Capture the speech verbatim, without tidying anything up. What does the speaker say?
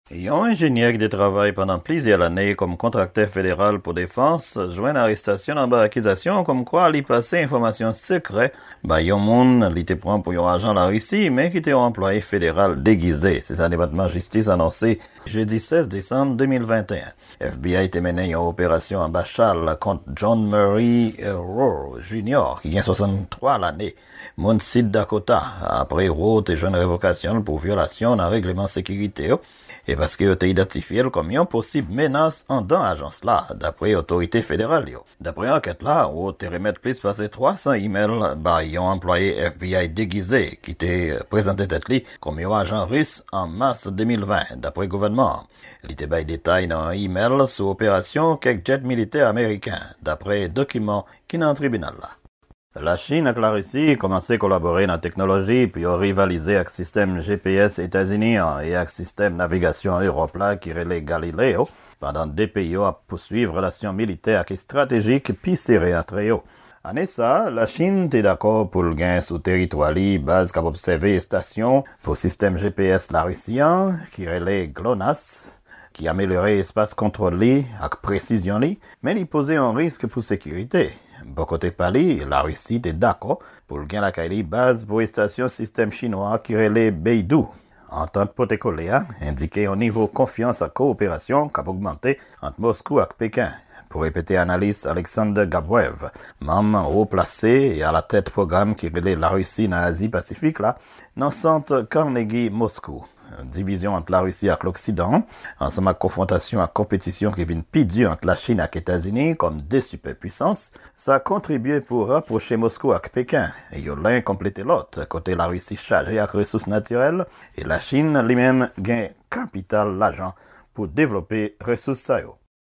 Yon enjenyè ki te travay pandan plizyè lane kòm kontraktè federal pou defans jwenn arestasyon anba akizasyon kòmkwa li pase enfòmasyon sekrè bay yon moun li te pran pou yon ajan Larisi, men ki te yon anplwaye federal degize. Se sa Depatman Jistis anonse jedi sèz desanm de mil venteyen. F B I te mennen yon operasyon anba chal kont John Murray Rowe Junior, ki gen swasanntwa lane, moun Sid Dakota, apre Rowe te jwenn revokasyon l pou vyolasyon nan regleman sekirite yo, e paske yo te idantifye l kòm yon posib menas anndan ajans la, dapre otorite federal yo. Dapre ankèt la, Rowe te remèt plis pase twa san imèl bay yon anplwaye F B I degize ki te prezante tèt li kòm yon ajan ris an mas de mil ven, dapre gouvènman an. Li te bay detay nan yon imèl sou operasyon kèk djèt militè ameriken, dapre dokiman ki nan tribinal la. Lachin ak Larisi kòmanse kolabore nan teknoloji pou yo rivalize ak sistèm G P S Etazini an e ak sistèm navigasyon Ewòp la ki rele Galileo, pandan de peyi yo ap pouswiv relasyon militè ak estratejik pi sere antre yo. Ane sa a, Lachin te dakò pou l gen sou teritwa li baz k ap obsève estasyon pou sistèm G P S Larisi an, ki rele GLONASS, ki amelyore espas kontwòl li ak presizyon li, men li poze yon risk pou sekirite. Bò kote pa li, Larisi te dakò pou l gen lakay li baz pou estasyon sistèm chinwa ki rele Beidou. Antant pote kole a endike yon nivo konfyans ak kowoperasyon k ap ogmante ant Moskou ak Peken. Pou repete analis Alexander Gabrev, manm wo plase e alatèt pwogram ki rele Larisi nan Azi Pasifik la, nan sant Carnegie Moskou. Divizyon ant Larisi ak Loksidan, ansanm ak konfwontasyon ak konpetisyon ki vin pi di ant Lachin ak Etazini kòm de sipèpwisans, sa kontribye pou rapwoche Moskou ak Peken, yo len konplete lòt, kote Larisi chaje ak resous natirèl e Lachin li menm gen kapital lajan pou devlope resous sa yo.